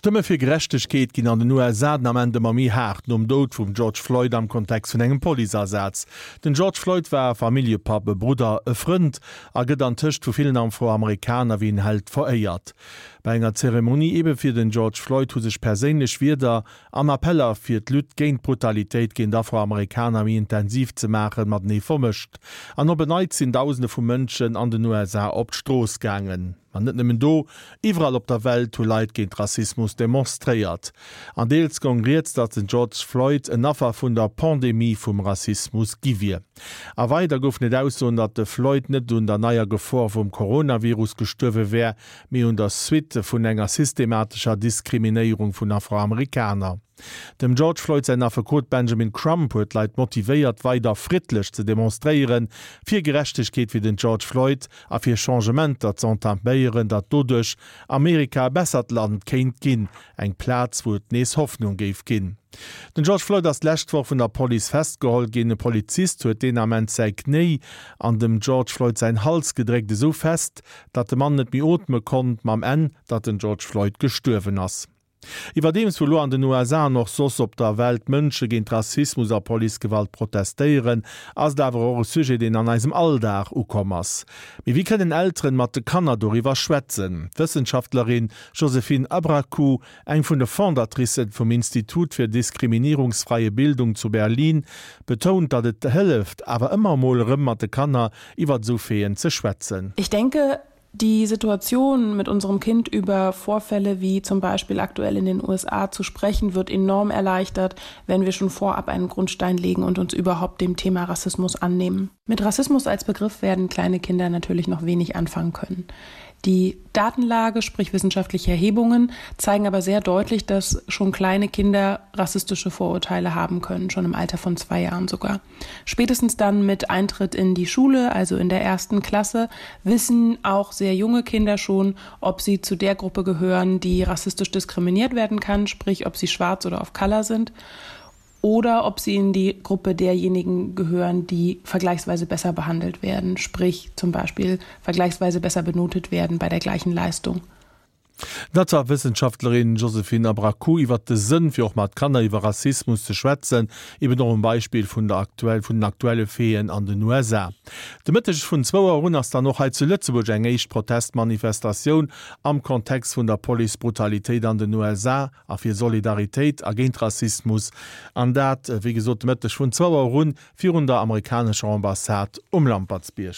D'Stëmme fir Gerechtegkeet ginn an den USA den Ament ëmmer méi haart, nom Doud vum George Floyd am Kontext vun engem Policeasaz. Den George Floyd war e Familljepapp, e Brudder, e Frënd a gëtt antëscht vu villen Afroamerikaner wéi en Held veréiert. Bei enger Zeremonie ebe fir den George Floyd hu sech perséinlech Wierder an Appeller fir d'Lutte géint d'Brutalitéit géint Afroamerikaner méi intensiv ze maachen matenee vermëscht. An op en Neits sinn Dausende vu Mënschen an den USA op d'Strooss gaangen. Ma net nëmmen do, iwwerall op der Welt hu Leit géint Rassismus demonstréiert. An deels gong rieds, datt den George Floyd en Affer vun der Pandemie vum Rassismus gi wier. A weider goufen et Aussoen, datt de Floyd net un der neier Gefor vum Coronavirus gestuerwe wär, mee un der Suite vun enger systematescher Diskriminéierung vun Afroamerikaner. Dem George Floyd säin Affekot Benjamin Crump huet d'Leit motivéiert, weider friddlech ze demonstréieren, fir Gerechtegkeet fir den George Floyd a fir Changementer z'entaméieren, datt doduerch Amerika e bessert Land kéint ginn, eng Plaz, wou et nees Hoffnung géif ginn. Den George Floyd ass d'lescht Woch vun der Police festgeholl ginn. E Polizist huet deen Ament säi Knéi an dem George Floyd säin Hals gedréckt, esou fest, datt de Mann net méi ootme konnt, mam Enn, datt den George Floyd gestuerwen ass. Iwwerdeems wou lo an den USA an och soss op der Welt Mënsche géint Rassismus a Policegewalt protestéieren, ass et awer och e Sujet, deen an eisem Alldag ukomm ass. Mee wéi kënnen Elteren mat de Kanner doriwwer schwätzen? D'Wëssenschaftlerin Joséphine Abrakou, eng vun de Fondatricen vum Institut für diskriminierungsfreie Bildung zu Berlin, betount, datt et hëlleft, awer ëmmer emol erëm mat de Kanner iwwert esou Faiten ze schwätzen. Ich denke, die Situation mit unserem Kind über Vorfälle wie zum Beispiel aktuell in den USA zu sprechen, wird enorm erleichtert, wenn wir schon vorab einen Grundstein legen und uns überhaupt dem Thema Rassismus annehmen. Mit Rassismus als Begriff werden kleine Kinder natürlich noch wenig anfangen können. Die Datenlage, sprich wissenschaftliche Erhebungen, zeigen aber sehr deutlich, dass schon kleine Kinder rassistische Vorurteile haben können, schon im Alter von zwei Jahren sogar. Spätestens dann mit Eintritt in die Schule, also in der ersten Klasse, wissen auch sehr junge Kinder schon, ob sie zu der Gruppe gehören, die rassistisch diskriminiert werden kann, sprich ob sie schwarz oder auf Color sind oder ob sie in die Gruppe derjenigen gehören, die vergleichsweise besser behandelt werden, sprich zum Beispiel vergleichsweise besser benotet werden bei der gleichen Leistung. Dat war d'Wëssenschaftlerin Joséphine Abrakou iwwert de Sënn, fir och mat Kanner iwwer Rassismus ze schwätzen, eben och um Beispill vun der aktuell vun den aktuelle Faiten an den USA. De Mëtteg vun zwou Auer un ass dann och hei zu Lëtzebuerg eng éischt Protestmanifestatioun am Kontext vun der Policebrutalitéit an den USA a fir Solidaritéit a géint Rassismus. An dat, wéi gesot, de Mëtteg vun zwou Auer un virun der amerikanescher Ambassade um Lampertsbierg.